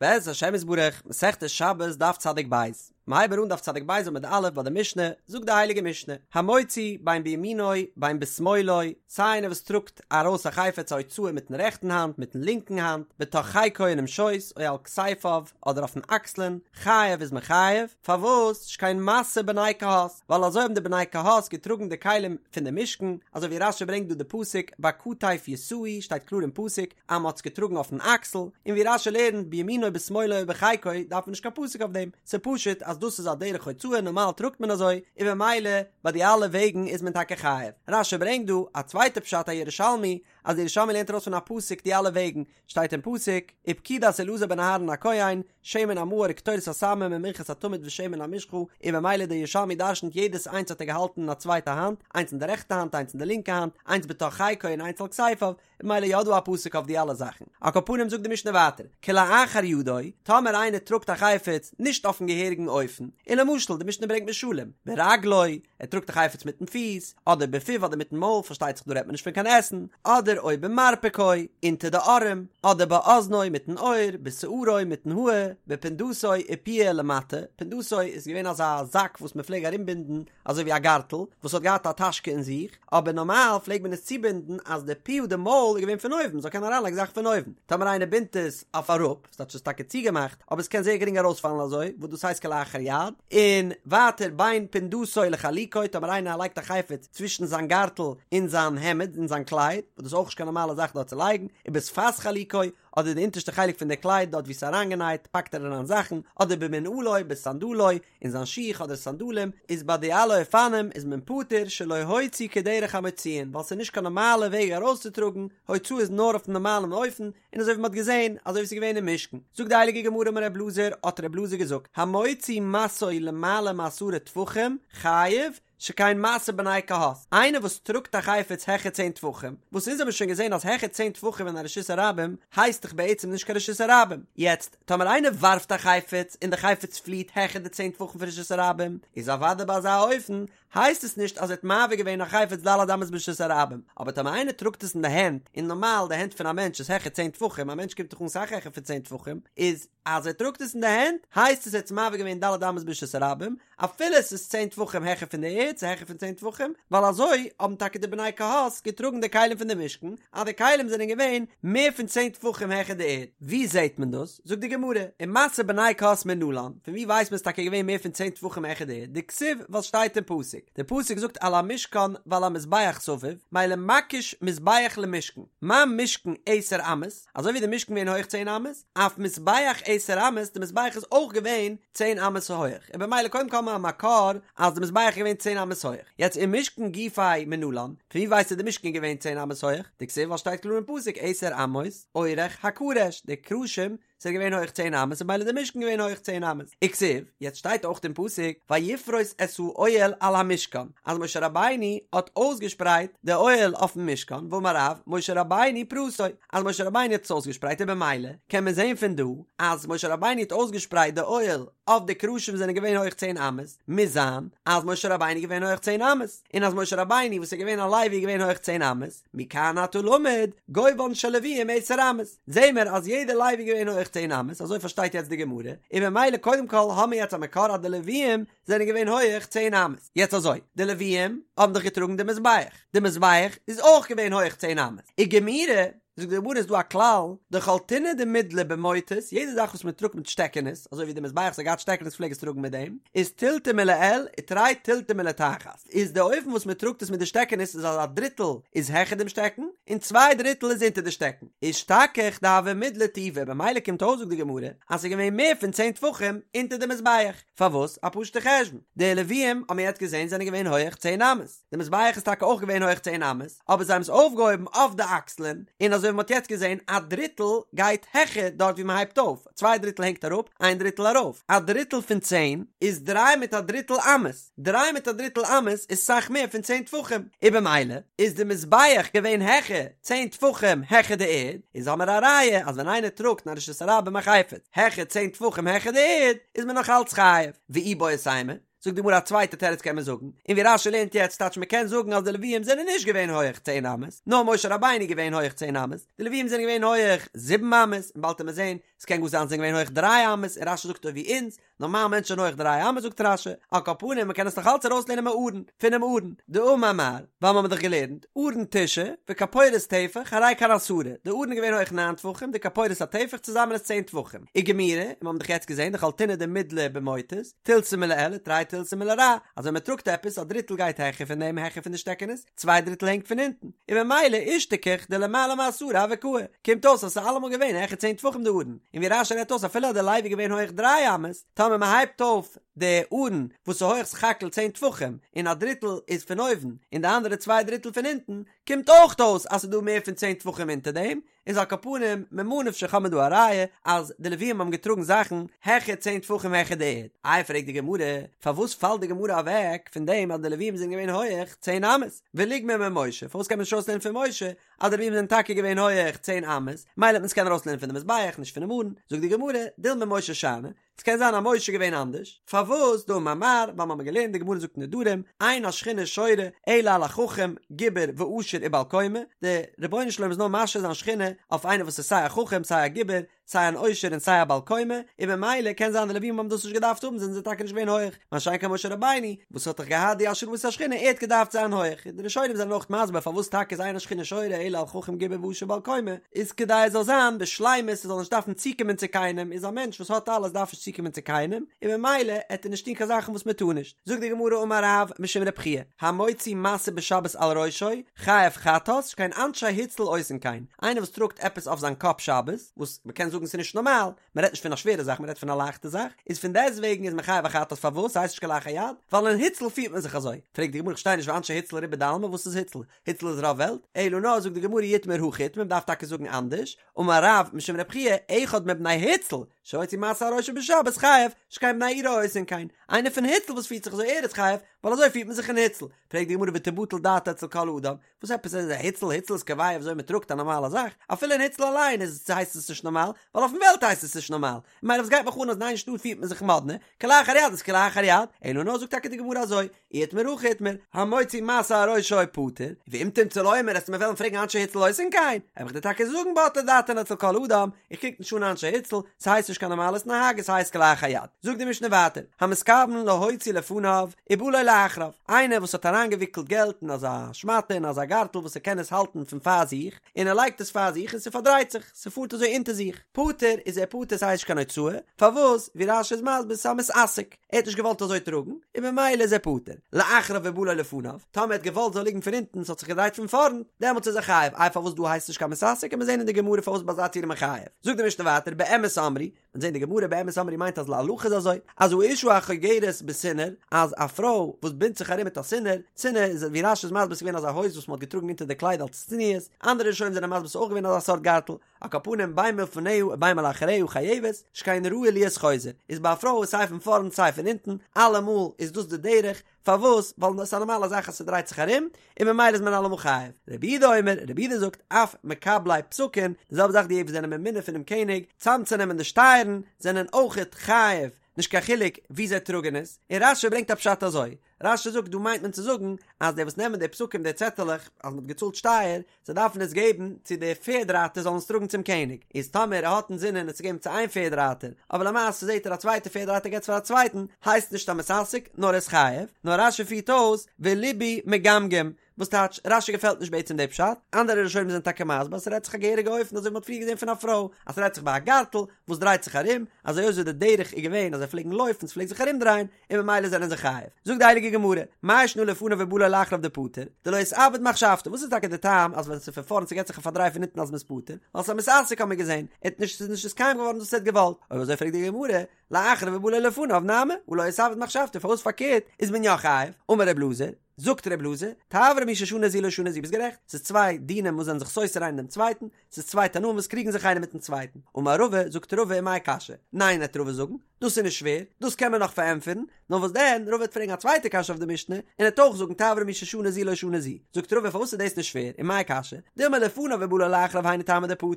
בעזרת השם יתברך, מסכת שבת דף צדיק בית, מ'הייבן אן דף צדיק בית עמוד א' ביי די משנה, זאגט די הייליגע משנה, המוציא בין בימינו בין בשמאלו, סיי איינער וואס טראגט ארויס א חפץ א הוצאה מיטן רעכטן האנט מיטן לינקן האנט, בתוך חיקו אינעם שויס, או על כתפיו, אדער אויפן אקסלען, חייב איז מען חייב, פארוואס? שכן משא בני קהת, ווייל אזוי האבן די בני קהת געטראגן די כלים פון די משכן, אזוי ווי רש"י ברענגט דא די פסוק בכתף ישאו, שטייט קלאר אין פסוק אז מען האט עס געטראגן אויפן אקסל, און ווי רש"י לערנט בימינו בשמאלו ובחיקו דארף מען נישט קיין פסוק אויף דעם, ס'איז פשוט אז דאס איז א דרך הוצאה נארמאל טראגט מען אזוי, און במילא ביי די אלע וועגן איז מען טאקע חייב. רש"י ברענגט דא א צווייטע פשט א ירושלמי, אז די ירושלמי לערנט ארויס פון א פסוק די אלע וועגן, שטייט אין פסוק, ופקודת אלעזר בן אהרן הכהן, שמן המאור וקטורת הסמים ומנחת התמיד ושמן המשחה, און במילא דער ירושלמי דרשנ'ט יעדעס איינס האט ער געהאלטן אין א צווייטע האנט, איינס אין די רעכטע האנט איינס אין די לינקע האנט, איינס בתוך חיקו און איינס על כתפיו, במילא יא דא א פסוק אויף די אלע זאכן. על כל פנים זאגט די משנה ווייטער, כלאחר ידו, טאמער איינער טראגט א חפץ נישט אויפן געהעריגן אופן, און למשל די משנה ברענגט משלים, ברגלו, ער טראגט א חפץ מיטן פיס, אדער בפיו אדער מיטן מויל, פארשטייט זיך דא רעדט מען נישט פון קיין עסן, אדער או במרפקו, אונטער די ארעם, אדער באזנו, מיטן אויער, בשערו, מיטן האר, בפונדתו ופיה למטה, פונדתו איז געווען אזא זאק וואס מען פלעג ארומבינדן אזוי ווי א גארטל, וואס האט געהאט א טאשקע אין זיך, אבער נארמאל פלעג מען עס צובינדן אז די פיה די מויל איז געווען פון אויבן, מ'זאל קענען אריינלייגן זאכן פון אויבן, טאמער איינער בינדט עס אויף אראפ, ס'טייטש ס'איז טאקע צוגעמאכט, אבער עס קען זייער גרינג ארויספאלן אזוי, וואס דאס הייסט כלאחר יד, און ווייטער בין פונדתו לחלוקו, טאמער איינער לייגט א חפץ צווישן זיין גארטל און זיין העמד, און זיין קלייד, וואס דאס איז אויך נישט קיין נארמאלע זאך דארט צו לייגן, ובשפת חלוקו, אדער די אונטערשטע חלק פון די קלייד דארט וואו ס'איז אריינגענייט פאקט ער אריין זאכן, אדער במנעלו, בסנדלו, אין זיין שיך אדער סנדלים, איז ביי די אלע אופנים איז מען פטור שלא הוציא כדרך המוציאין, ווייל ס'איז נישט קיין נארמאלע וועג ארויסצוטראגן, הוצאה איז נאר אויפן נארמאלן אופן, און אזוי ווי מ'האט געזען, אזוי ווי ס'איז געווען אין משכן. זאגט די הייליגע גמרא אמר ר' אלעזר, האט ר' אלעזר געזאגט, המוציא משאו למעלה מעשרה טפחים, חייב, שכן משא בני קהת, איינער וואס טראגט א חפץ העכער צען טפחים, וואס אונז האבן שוין געזען אז העכער צען טפחים אין א רשות הרבים הייסט דאך בעצם נישט קיין רשות הרבים, יעצט טאמער איינער ווארפט א חפץ און די חפץ פליעט העכער די צען טפחים פון רשות הרבים, איז אוודאי ביי אזא אופן הייסט עס נישט אז ער האט מעביר געווען א חפץ ד' אמות ברשות הרבים, אבער טאמער איינער טראגט עס אין די הענט, און נארמאל די הענט פון א מענטש איז העכער צען טפחים, א מענטש קומט דאך אן סאך העכער פון צען טפחים, איז אז ער טראגט עס אין די הענט הייסט עס ער האט עס מעביר געווען ד' אמות ברשות הרבים, אפילו עס איז צען טפחים העכער פון די ערד, ס'איז העכער פון צען טפחים, ווייל אזוי האבן טאקע די בני קהת געטראגן די כלים פון די משכן, אז די כלים זענען געווען מער פון צען טפחים העכער די ערד. ווי זעט מען דאס? זאגט די גמרא, ומשא בני קהת מנלן, פון ווי ווייסט מען ס'איז טאקע געווען מער פון צען טפחים העכער די ערד? דכתיב ווייל ס'שטייט אין פסוק, די פסוק זאגט על המשכן ועל המזבח סביב, מילא מקיש מזבח למשכן, מה משכן עשר אמות, אזוי ווי די משכן געווען הויך צען אמות, אף מזבח עשר אמות, די מזבח איז אויך געווען צען אמות הויעך, און במילא קודם כל האבן מיר א מקור אז די מזבח איז געווען צען אמות הויעך, יעצט ומשכן גופיה מנלן, פון ווי ווייסטו די משכן איז געווען צען אמות הויעך? דכתיב ווייל שטייט קלאר אין פסוק עשר אמות אורך הקרש, די קרשים זענען געווען הויעך צען אמות און במילא די משכן געווען הויעך צען אמות, וכתיב, יעצט שטייט אויך אין פסוק ויפרוס את האוהל על המשכן, אז משה רבינו האט אויסגעשפרייט די אוהל אויפן משכן, ואמר רב, משה רבינו פרסו, אז משה רבינו האט עס אויסגעשפרייט און במילא קען מען זען פון דא אז משה רבינו האט אויסגעשפרייט די אוהל אויף די קרשים וואס זענען געווען הויך צען אמות, מוז זיין אז משה רבינו איז געווען הויך צען אמות, און אז משה רבינו וואס איז געווען א לוי איז געווען הויך צען אמות, מכאן אתה למד, גובהן של לוויים עשר אמות, זעהן מיר אז יעדער לוי איז געווען הויך צען אמות, אזוי פארשטייט יעצט די גמרא, און במילא קודם כל האמיר יעצט א מקור אז די לוויים זענען געווען הויעך צען אמות, יעצט אזוי, די לוויים האבן דאך געטראגן די מזבח, די מזבח איז אויך געווען הויעך צען אמות, וגמירי, זאגט די גמרא איז דא א כלל, דכל טונא דמידלי במוטות, יעדע זאך וואס מען טראגט מיט שטעקענעס, אזוי ווי די מזבח וואס האט געהאט שטעקענעס פלעג עס טראגן מיט דעם, איז תילתא מלעיל ותרי תילתי מלתחת, איז די אופן וואס מען טראגט עס מיט די שטעקענעס איז אז א דריטל איז העכער דעם שטעקן, און צוויי דריטל איז אונטער די שטעקן, אשתכח דהוה מידלי טובא, במילא קומט אויס זאגט די גמרא, אז ס'איז געווען מער פון צען טפחים אונטער די מזבח. פארוואס? א פשוטע חשבון. די לוויים, האבן מיר יעצט געזען, זענען געווען הויעך צען אמות. די מזבח איז טאקע אויך געווען הויעך צען אמות, אבער זיי האבן עס אויפגעהויבן אויף די אקסלען, און אזוי ווי מ'האט יעצט געזען, א דריטל גייט העכער דארט ווי מ'הייבט אויף, צוויי דריטל הענגט אראפ, איין דריטל ארויף. א דריטל פון צען איז דריי מיט א דריטל אמות. דריי מיט א דריטל אמות איז סאך מער פון צען טפחים, און במילא איז די מזבח געווען העכער צען טפחים העכער די ערד, איז האמער א ראיה אז ווען איינער טראגט אין א רשות הרבים א חפץ העכער צען טפחים העכער די ערד איז מען נאך אלץ חייב, ואיבעית אימא, זאגט די גמרא א צווייטע תירוץ קען מען זאגן, און ווי רש"י לערנט יעצט טייטש מען קען זאגן אז די לוויים זענען נישט געווען הויעך צען אמות, נאר משה רבינו איז געווען הויעך צען אמות, די לוויים זענען געווען הויעך זיבן אמות, און באלד וועט מען זען, ס'קען גאר זיין זיי זענען געווען הויעך דריי אמות, און רש"י זאגט אזוי ווי אונז, נארמאל מענטשן זענען הויעך דריי אמות זאגט רש"י, על כל פנים מ'קען עס נאך אלץ ארויסלערנען מארון, פונעם ארון, דאמר מר, ווייל מ'האט דאך געלערנט, ארון תשעה, וכפורת טפח, הרי כאן עשרה, די ארון איז געווען הויעך ניין טפחים, די כפורת א טפח צוזאמען איז צען טפחים, וגמירי, און מ'האבן דאך יעצט געזען דכל טונא דמידלי במוטות, תילתא מלעילא תרי תילתי מלרע, אז ווען מ'טראגט עפעס, א דריטל גייט העכער פון דעם העכער פון די שטעקענעס, צוויי דריטל הענגט פון אונטן, און ממילא אישתכח דלמעלה מעשרה הוה קאי, קומט אויס אז ס'איז אלעמאל געווען העכער צען טפחים די ארון, און ווי רש"י רעדט אויס אפילו אז די לוי איז געווען הויעך דריי אמות, טאמער מ'הייבט אויף די ארון וואס איז הויעך סך הכל צען טפחים, און א דריטל איז פון אויבן און די אנדערע צוויי דריטל פון אונטן, קומט אויך אויס אז ס'איז דא מער פון צען טפחים אונטער דעם, איז על כל פנים, ממה נפשך האט מען דא א ראיה אז די לווים האבן געטראגן זאכן העכער צען טפחים העכער די ערד. איי פרעגט די גמרא, פארוואס פאלט די גמרא אוועק פון דעם אז די לווים זענען געווען הויעך צען אמות? וליגמר ממשה, פארוואס קען מען נישט ארויסלערנען פון משה אז די לווים זענען טאקע געווען הויעך צען אמות, מילא וועט מען עס קענען ארויסלערנען פון די מזבח נישט פונעם ארון, זאגט די גמרא, דילמא משה שאני, ס'קען זיין אז משה איז געווען אנדערש, פארוואס דאמר מר, ווייל מ'האמיר געלערנט די גמרא זאגט נדרים, אין השכינה שורה אלא על החכם, גיבור ועשיר ובעל קומה, די רבונו של עולם איז נאר משרה זיין שכינה אויף איינער וואס איז סיי א חכם סיי א גיבור, סיי אן עושר און סיי א בעל קומה, און ממילא קען זיין די לווים האבן דאס נישט געדארפט האבן זענען זיי טאקע נישט געווען הויעך, מה שאין כן משה רבינו וואס האט דאך געהאט די השראת השכינה ער האט געדארפט זיין הויעך, און די ראשונים זענען אויך מסביר פארוואס טאקע איז אין השכינה שורה אלא על חכם גיבור ועשיר ובעל קומה, איז כדי עס זאל זיין בשלימות עס זאל נישט דארפן צוקומען צו קיינעם, איז א מענטש וואס האט אלעס דארף נישט צוקומען צו קיינעם, און ממילא עט ער נישט טון קיין זאכן וואס מען טאר נישט. זאגט די גמרא אמר רב משום רב חייא, המוציא משא בשבת על ראשו, חייב חטאת, שכן אנשי הוצל עושין כן, איינער וואס טראגט עפעס אויף זיין קאפ שבת, וואס מען קען זאגן ס'איז נישט נארמאל, מען רעדט נישט פון א שווערע זאך מען רעדט פון א לייכטע זאך, איז פון דעסט וועגן איז מען חייב א חטאת פארוואס ס'הייסט נישט כלאחר יד, ווייל אין הוצל פירט מען זיך אזוי, פרעגט די גמרא איך פארשטיי נישט ואנשי הוצל רובא דעלמא וואס איז הוצל? הוצל איז רוב וועלט? אלא נאר זאגט די גמרא אי איתמר הכי איתמר מען דארף טאקע זאגן אנדערש, אמר רב משום רב חייא אחד מבני הוצל שהוציא משא על ראשו בשבת חייב שכן בני עירו עושין כן, איינער פון הוצל וואס פירט זיך אזוי ער איז חייב ווייל אזוי פירט מען זיך אין הוצל, פרעגט די גמרא ותבטל דעתו אצל כל אדם, וואס עפעס איז א הוצל? הוצל איז קובע וויאזוי מען טראגט א נארמאלע זאך, אפילו אין הוצל אליין איז הייסט עס נישט נארמאל, ווייל אויפן וועלט הייסט עס נישט נארמאל, ממילא וואס גייט מיך אן אז אין איין שטאט פירט מען זיך מאדנע, כלאחר יד איז כלאחר יד, אלא נאר זאגט טאקע די גמרא אזוי, אי איתמר הכי איתמר, המוציא משא על ראשו פטור, ואם תמצא לומר וועסטו מיר וועלן פרעגן אנשי הוצל עושין כן, וועל איך דיר טאקע זאגן בטלה דעתן אצל כל אדם, איך קוק נישט אן אנשי הוצל, ס'הייסט נישט קיין נארמאלע התנהגות ס'הייסט כלאחר יד. זאגט די משנה ווייטער, המתכוון להוציא לפניו ובא לו לאחריו, איינער וואס האט אריינגעוויקלט געלט אין אזא שמאטע אין אזא גארטל וואס ער קען עס האלטן פון פאר זיך, און ער לייגט עס פאר זיך און ס'פארדרייט זיך, ס'פארט אזוי אונטער זיך, פטור איז ער פטור ס'הייסט נישט קיין הוצאה, פארוואס? ווי רש"י איז מסביר ס'איז א מתעסק, ער האט נישט געוואלט אזוי טראגן, און ממילא איז ער פטור. לאחריו ובא לו לפניו, טאמער ער האט געוואלט זאל ליגן פון אונטן ס'האט זיך געדרייט פון פארנט, דעמאלטס איז ער חייב, איי פארוואס דא הייסט נישט קיין מתעסק, קען מען זען אין די גמרא פארוואס ביי אזא ציור איז מען חייב. זאגט די משנה ווייטער באמת אמרו, מ'וועט זען די גמרא באמת אמרו מיינט אז להלכה איז אזוי, אז האשה החוגרת בסינר, אז א פרוי וואס בינדט זיך ארום מיט א סינר, סינר איז ווי רש"י איז מסביר ס'איז געווען אזא הויז וואס מ'האט געטראגן אונטער די קלייד אלס צניעות, אנדערע ראשונים זענען מסביר ס'איז אויך געווען אזא סארט גארטל, על כל פנים בין מלפניה ובין מלאחריה חייבת, שכן ראוי להיות חוזר, איז ביי א פרוי סיי פון פארנט סיי פון אונטן, אלעמאל איז דאס די דרך, פארוואס? ווייל עס איז א נארמאלע זאך אז ס'דרייט זיך ארום, און ממילא איז מען אלעמאל חייב. רבי יהודה אומר, רבי יהודה זאגט, אף מקבלי פתקין, די זעלבע זאך די וואס זענען ממונה פונעם קעניג, צאמצונעמען די שטייערן, זענען אויכעט חייב, נישט קיין חילוק ווי זיי טראגן עס, און רש"י ברענגט א פשט אזוי, רש"י זאגט דא מיינט מען צו זאגן אז די וואס נעמען די פתקים די צעטעלעך אז מ'האט געצאלט שטייער, זיי דארפן עס געבן צו די פערד רייטער זאלן עס טראגן צום קעניג, איז טאמער ער האט אינזינען עס צו געבן צו איין פערד רייטער, אבער למעשה זעט ער א צווייטע פערד רייטער געבט עס פאר א צווייטן, הייסט נישט א מתעסק נאר ער איז חייב, נאר רש"י פירט אויס ולבי מגמגם, וואס טייטש, רש"י געפעלט נישט בעצם די פשט, אנדערע ראשונים זענען טאקע מסביר אז ס'רעדט זיך א געהעריגע אופן אזוי ווי מ'האט פריער געזען פון א פרוי, אז ס'רעדט זיך ביי א גארטל וואס דרייט זיך ארום, אזוי אויך ווי די דרך איז געווען אז זיי פלעגן לויפן ס'פלעגט זיך ארומדרייען, און ממילא זענען זיי חייב. זאגט די הייליגע גמרא, מאי שנא לפניו ובא לו לאחריו דפטור, דלא אתעביד מחשבתו, וואס איז טאקע די טעם אז ווען ס'איז פון פארנט ס'געט זיך א פארדריי פון הינטן אז מ'איז פטור, ווייל ס'איז א מתעסק האט מען געזען, ער האט נישט ס'איז נישט נתקיים געווארן וואס ער האט געוואלט, אויב אזוי פרעגט די גמרא, לאחריו ובא לו לפניו נמי, הא לא אתעביד מחשבתו, פארוואס פארקערט איז מען יא חייב? אמר ר' אלעזר. זאגט ר' אלעזר, תברא מי ששנה זו לא שנה זו, ביסט גערעכט, ס'איז צוויי דינים וואס זענען זיך סותר איינער דעם צווייטן, ס'איז צוויי תנאים וואס קריגן זיך איינער מיטן צווייטן. אמר רבא, זאגט רבא ומאי קשיא? ניין וועט רבא זאגן, דאס איז נישט שווער, דאס קען מען נאך פארענטפערן, נאר וואס דען, רבא וועט פרעגן א צווייטע קשיא אויף די משנה, און ער וועט אויך זאגן תברא מי ששנה זו לא שנה זו. זאגט רבא פארוואס איז דאס נישט שווער, ומאי קשיא? דילמא לפניו ובא לו לאחריו היינו טעמא דפטור,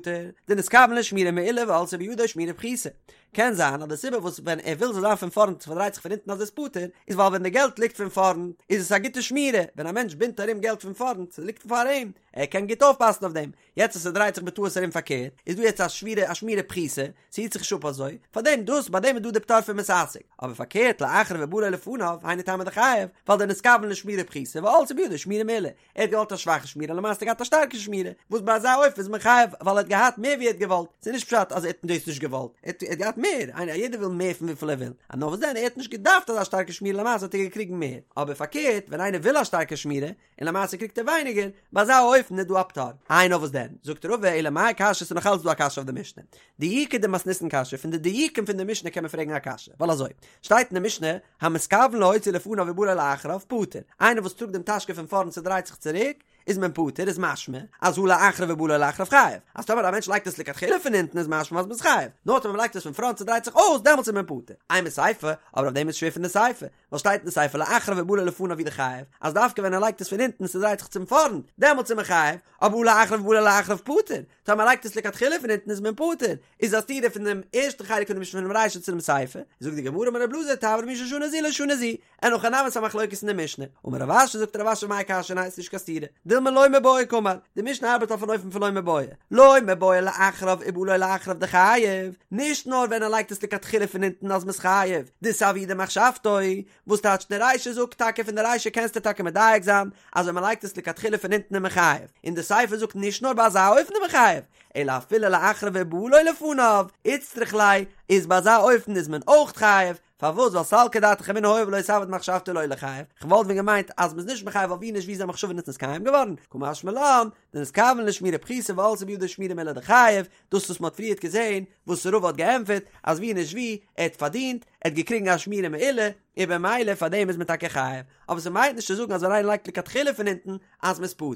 דנתכוון לשמירה מעולה ועלתה בידו שמירה פחותה. קען זיין אז די סיבה וואס ווען ער וויל זאל זיין פון פארנט ס'פארדרייט זיך פון הינטן אז עס פטור, איז ווייל ווען די געלט ליגט פון פארנט איז עס א גוטע שמירה, ווען א מענטש בינדט ארום געלט פון פארנט, ס'ליגט פאר אים, ער קען גוט אויפפאסן אויף דעם, יעצט אז ס'דרייט זיך בטעות ארום פארקערט, איז דא יעצט א שמירה א שמירה פחותה, ס'היט זיך נישט אפ אזוי, פארדעם דאס ביי דעם איז דא די פטור פון מתעסק, אבער פארקערט לאחריו ובא לו לפניו, היינו טעמא דחייב, ווייל דנתכוון לשמירה פחותה ועלתה בידו שמירה מעולה, ער האט געוואלט א שוואכע שמירה למעשה האט ער געהאט א שטארקע שמירה, וואס ביי אזא אופן איז מען חייב ווייל ער האט געהאט מער ווי ער האט געוואלט, ס'איז נישט פשט אז ער האט דאס נישט געוואלט, ער האט געהאט מער, איינער יעדער וויל מער פון וויפיל ער וויל, נאר וואס דען ער האט נישט געדארפט אזא שטארקע שמירה למעשה האט ער געקריגן מער, אבער פארקערט ווען איינער וויל א שטארקע שמירה, און למעשה קריגט ער ווייניגער, ביי אזא אופן איז דא א פטור. איי נאר וואס דען? זאגט רבא אלא מאי קשיא ס'איז נאך אלץ דא א קשיא אויף די משנה. דיוקא דמתניתין קשיא, פון די דיוקים פון די משנה קען מען פרעגן א קשיא, ווייל אזוי, שטייט אין די משנה, המתכוון להוציא לפניו ובא לו לאחריו, פטור. איינער וואס טראגט דעם טאשקע פון פארנט ס'דרייט זיך צוריק, איז מען פטור, איז משמע, אז הא לאחריו ובא לו לאחריו חייב. אז טאמער א מענטש לייגט עס לכתחילה פון הינטן איז משמע אז מ'איז חייב. נאר טאמער מ'לייגט עס פון פראנט ס'דרייט זיך אויס, דעמאלטס איז מען פטור. אימא סיפא, אבער אויף דעם איז שווער פון די סיפא. ווייל שטייט אין די סיפא לאחריו ובא לו לפניו הוא דחייב, אז דווקא ווען ער לייגט עס פון הינטן און ס'דרייט זיך צום פארנט, דעמאלטס איז מען חייב, אבער הא לאחריו ובא לו לאחריו פטור, טאמער מ'לייגט עס לכתחילה פון הינטן איז מען פטור, איז א סתירה פון דעם ערשטן חלק פון די משנה פונעם רישא צו דעם סיפא, זאגט די גמרא אמר ר' אלעזר תברא מי ששנה זו לא שנה זו, אין הכי נמי ס'איז א מחלוקת אין די משנה, אמר רב אשי זאגט רב אשי מאי קשיא ניין ס'נישט קיין סתירה, דילמא לא מיבעיא קאמר, די משנה ארבעט אויף אן אופן פון לא מיבעיא, לא מיבעיא לאחריו ובא לו לאחריו דחייב, נישט נאר ווען ער לייגט עס לכתחילה פון אונטן אז מ'איז חייב, דסהוה דמחשבתו, וואס טייטש די רישא זאגט טאקע פון די רישא קענסטו טאקע מדייק זיין אז ווען מ'לייגט עס לכתחילה פון אונטן איז מען חייב, און די סיפא זאגט נישט נאר ביי אזא אופן איז מען חייב, אלא אפילו לאחריו ובא לו לפניו, איצטריך ליה, איז ביי אזא אופן איז מען אויך חייב, פארוואס ווייל סלקא דעתך אמינא הואיל ולא סהוה דמחשבתו לא ליחייב, כ'וואלט ווען געמיינט אז מ'איז נישט מחייב ווייל ווי נישט ווי זיין מחשבה איז נתקיים געווארן, קא משמע לן, דנתכוון לשמירה פחותה ועלתה בידו שמירה מעולה דחייב, דאס וואס מ'האט פריערט געזען, וואס רבא האט געענטפערט, אז ווי נישט ווי, ער האט פארדינט, ער האט געקריגן א שמירה מעולה, און במילא פאר דעם איז מען טאקע חייב, אבער ס'מיינט נישט צו זאגן אז ווען איינער לייגט לכתחילה פון אונטן אז מ'איז פטור.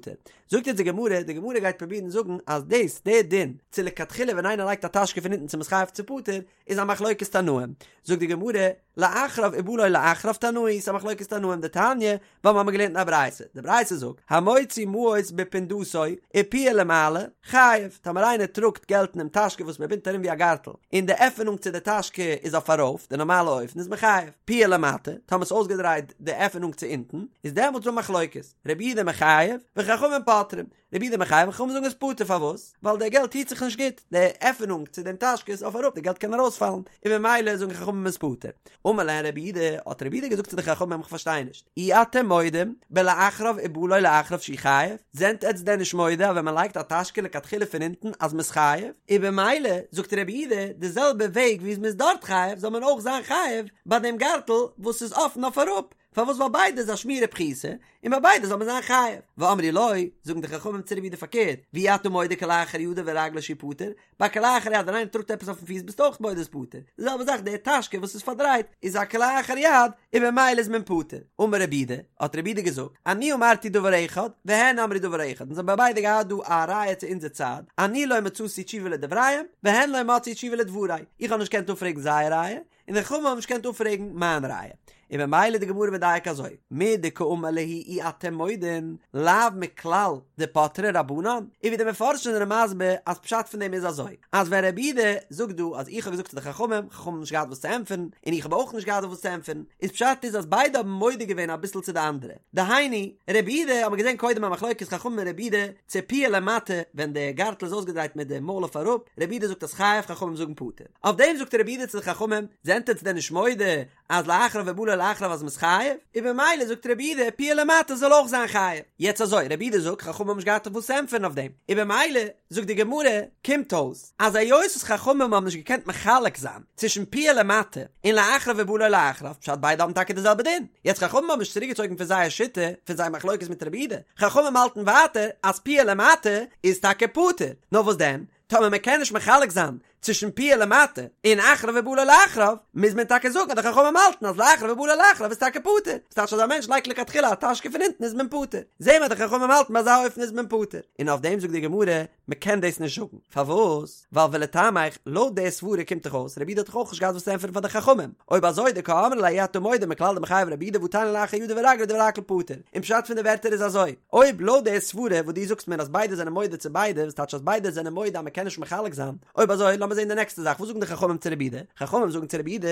זאגט יעצט די גמרא, די גמרא גייט פרובירן זאגן אז דאס, דער דין, צו לכתחילה ווען איינער לייגט א טאשקע פון אונטן צו מ'איז חייב צו פטור, איז א מחלוקת תנאים. זאגט די גמרא, לאחריו ובא לו לאחריו תנאי, ס'איז א מחלוקת תנאים דתניא, ווייל מ'האמיר געלערנט אין א ברייתא, די ברייתא זאגט, המוציא מעות בפונדתו ופיה למעלה, חייב, טאמער איינער טראגט געלט אינעם טאשקע וואס מ'בינדט ארום ווי א גארטל, און די עפענונג צו די טאשקע איז אויף ארויף, די נארמאלע אופן איז מען חייב, פיה למטה, טאמער ס'איז אויסגעדרייט די עפענונג צו אונטן, איז דעמאלטס דא מחלוקת, רבי יהודה מחייב, וחכמים פוטרים, רבי יהודה מחייב חכמים זאגן איז פטור פארוואס? ווייל די געלט היט זיך נישט גוט, די עפענונג צו דעם טאשקע איז אויף אראפ די געלט קען ארויספאלן, און ממילא זאגן חכמים איז פטור. אמר להם רבי יהודה, האט רבי יהודה געזאגט צו די חכמים איך פארשטיי נישט, אי אתם מודים בלאחריו ובא לו לאחריו שהוא חייב, זענט עטץ דען נישט מודה אז ווען מען לייגט א טאשקע לכתחילה פון אונטן אז מען איז חייב, און במילא זאגט רבי יהודה די זעלבע וועג ווי מען איז דארט חייב זאל מען אויך זיין חייב ביי דעם גארטל וואס איז אפן אויף אראפ, פארוואס ווייל ביידע איז א שמירה פחותה, און ביי ביידע זאל מען זיין חייב. ואמרו לו, זאגן די חכמים צו רבי יהודה פארקערט, ואי אתה מודה כלאחר ידו ורגלו שהוא פטור, ביי כלאחר יד ווען איינער טראגט עפעס אויפן פיס ביסטו אויך מודה איז פטור, די זעלבע זאך די טאשקע וואס איז פארדרייט איז א כלאחר יד און במילא איז מען פטור. אמר רבי יהודה, האט רבי יהודה געזאגט, אני אמרתי דבר אחד, והן אמרו דבר אחד, אונז האבן ביידע געהאט דא א ראיה צו אונזער צד, אני לא מצאתי תשובה לדבריהם, והן לא מצאו תשובה לדברי, איך האב נישט געקענט אפפרעגן זייער ראיה, און די חכמים האבן נישט געקענט אפפרעגן מיין ראיה. און ממילא די גמרא מדייק אזוי, מדקאמר להו אי אתם מודין, לאו מכלל דפטרי רבנן, און ווי די מפרשים זענען מסביר אז פשט פון דעם איז אזוי, אז ווען רבי יהודה זאגט דא אז איך האב געזאגט צו די חכמים, חכמים האבן נישט געהאט וואס צו ענטפערן, און איך האב אויך נישט געהאט וואס צו ענטפערן, איז פשט איז אז ביידע האבן מודה געווען אביסל צו די אנדערע. דהיינו, רבי יהודה האט מען געזען קודם א מחלוקת חכמים און רבי יהודה, צו פיה למטה ווען די גארטל איז אויסגעדרייט מיט די מויל אויף אראפ, רבי יהודה זאגט אז חייב, חכמים זאגן פטור. אויף דעם זאגט רבי יהודה צו די חכמים, זענט עטץ דען נישט מודה אז לאחריו ובא לו לאחריו אז מ'איז חייב? און במילא זאגט רבי יהודה פיה למטה זאל אויך זיין חייב. יעצט אזוי, רבי יהודה זאגט חכמים האבן נישט געהאט אויף וואס צו ענטפערן אויף דעם, און במילא זאגט די גמרא, קומט אויס אז היות וואס חכמים האבן נישט געקענט מחלק זיין צווישן פיה למטה און לאחריו ובא לו לאחריו, פשט ביידע האבן טאקע די זעלבע דין. יעצט חכמים האבן נישט צוריקגעצויגן פון זייער שיטה, פון זייער מחלוקת מיט רבי יהודה, חכמים האלטן ווייטער אז פיה למטה איז טאקע פטור, נאר וואס דען? טאמער מען קען נישט מחלק זיין. צווישן פיה למטה און אחריו ובא לו לאחריו, מוז מען טאקע זאגן אז די חכמים האלטן אז לאחריו ובא לו לאחריו איז טאקע פטור, וואס טייטש אז א מענטש לייגט לכתחילה א טאשקע פון אונטן איז מען פטור, זעהן מיר אז די חכמים האלטן ביי אזא אופן איז מען פטור, און אויף דעם זאגט די גמרא, מען קען דאס נישט זאגן, פארוואס? ווייל ולטעמיך, לויט די סברה קומט דאך אויס, רבי יהודה האט דאך אויך נישט געהאט וואס צו ענטפערן פאר די חכמים, אויב אזוי דקאמרי ליה אי אתה מודה מכלל דמיחייב רבי יהודה והתניא לאחר ידו ורגלו דברי הכל פטור, און פשט פון די ווערטער איז אזוי, אויב לויט די סברה וואס דו זאגסט מיר אז ביידע זענען מודה צו ביידע, וואס טייטש אז ביידע זענען מודה אז מען קען נישט מחלק זיין, אויב אזוי לאמיר זען די נעקסטע זאך, וואס זאגן די חכמים צו רבי יהודה? חכמים זאגן צו רבי יהודה,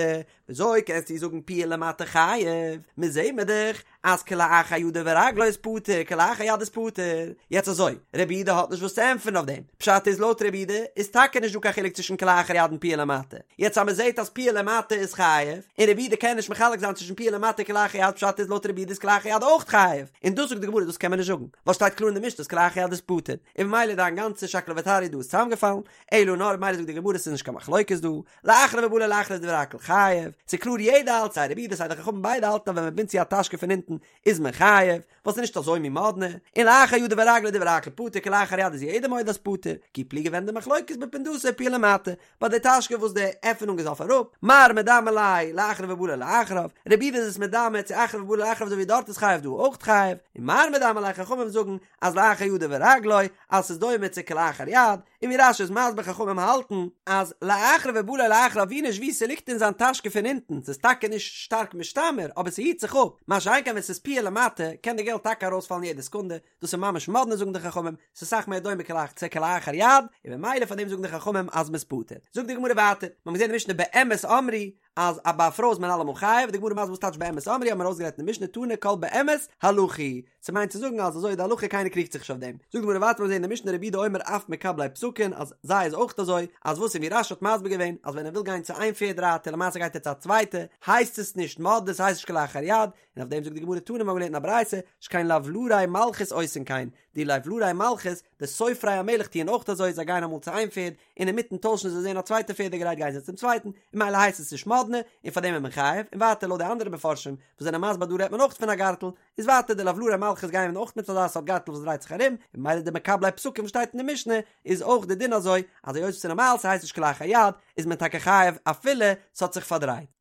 וויאזוי קענסטו זאגן פיה למטה חייב, מיר זעהן מיר דאך אז כלאחר ידו ורגלו איז פטור, כלאחר יד איז פטור. יעצט אזוי, רבי יהודה האט נישט וואס צו ענטפערן אויף דעם. פשט איז לויט רבי יהודה איז טאקע נישט דא קיין חילוק צווישן כלאחר יד און פיה למטה. יעצט אז מען זעהט אז פיה למטה איז חייב, און רבי יהודה קען נישט מחלק זיין צווישן פיה למטה און כלאחר יד פשט איז לויט רבי יהודה איז כלאחר יד אויך חייב. און דאס זאגט די גמרא דאס קען מען נישט זאגן, ווייל שטייט קלאר אין די משנה אז כלאחר יד איז פטור. און ממילא דיין גאנצע שקלא וטריא דא איז צוזאמגעפאלן. אלא נאר ממילא זאגט די גמרא ס'איז נישט קיין מחלוקת דא, לאחריו ובא לו לאחריו איז דברי הכל חייב, ס'איז קלאר יעדער האלט סיי רבי יהודה סיי די חכמים ביידע האלטן אז ווען מ'בינדט צו א טאשקע פון אונטן איז מען חייב, ווייל ס'איז נישט אזוי מין מאדנע, און לאחר ידו ורגלו דברי הכל פטור כלאחר יד איז יעדער מודה אז פטור, כי פליגי ווען די מחלוקת בפונדתו ופיה למטה, ביי די טאשקע וואס די עפענונג איז אויף אראפ, מר מדמי ליה לאחריו ובא לו לאחריו, רבי יהודה איז עס מדמה צו אחריו ובא לו לאחריו אזוי ווי דארט איז חייב דא אויך חייב, און מר מדמי ליה חכמים זאגן אז לאחר ידו ורגלו אז ס'איז דומה צו כלאחר יד, און ווי רש"י איז מסביר חכמים האלטן אז לאחריו ובא לו לאחריו ווי נישט ווי ס'ליגט אין זיין טאשקע פון אונטן ס'איז טאקע נישט שטארק משתמר אבער ס'היט זיך אפ, מה שאין כן ווען ס'איז פיה למטה קען די געלט טאקע ארויספאלן יעדע סעקונדע, דאס איז ממש מאדנע זאגן די חכמים, ס'איז סאך מער דומה כלאח צו כלאחר יד, און ממילא פאר דעם זאגן די חכמים אז מ'איז פטור. זאגט די גמרא ווייטער, מ'האט געזען אין משנה באמת אמרו אז א ביי א פרוי איז מען אלעמאל חייב, די גמרא מסביר וואס טייטש באמת אמרו האבן מיר אויסגערעדט אין די משנה תנא כל באמת הלכה היא, ס'מיינט צו זאגן אז אזוי איז די הלכה קיינער קריגט זיך נישט אויף דעם. זאגט די גמרא ווייטער מיר זעהן אין די משנה רבי יהודה אומר אף מקבלי פסקין אז זיי איז אויך אזוי אז וואס און ווי רש"י האט מסביר געווען אז ווען ער וויל גיין צו איין פערד רייטער למעשה גייט ער צו א צווייטע הייסט עס נישט מאדנע ס'הייסט נישט כלאחר יד און אויף דעם זאגט די גמרא תנא מיר האבן געלערנט אין א ברייתא שכן לבלרי מלכות עושין כן די לבלרי מלכות די סופרי המלך טוען אויך אזוי זיי גייען אמאל צו איין פערד און אינמיטן טוישן זיי זעהן א צווייטע פערד גרייט גייען זיי צום צווייטן און ממילא הייסט עס נישט מאדנע און פאר דעם איז מען חייב און ווייטער לויט די אנדערע מפרשים וואס זענען מסביר דא רעדט מען אויך פון א גארטל איז ווייטער די לבלרי מלכות גייען אויך מיט אזא סארט גארטל וואס דרייט זיך ארום און ממילא די מקבלי פסקים וואס שטייט אין די משנה איז אויך די דין אזוי אז היות עס איז נארמאל ס'הייסט נישט כלאחר יד איז מען טאקע חייב אפילו ס'האט זיך פארדרייט.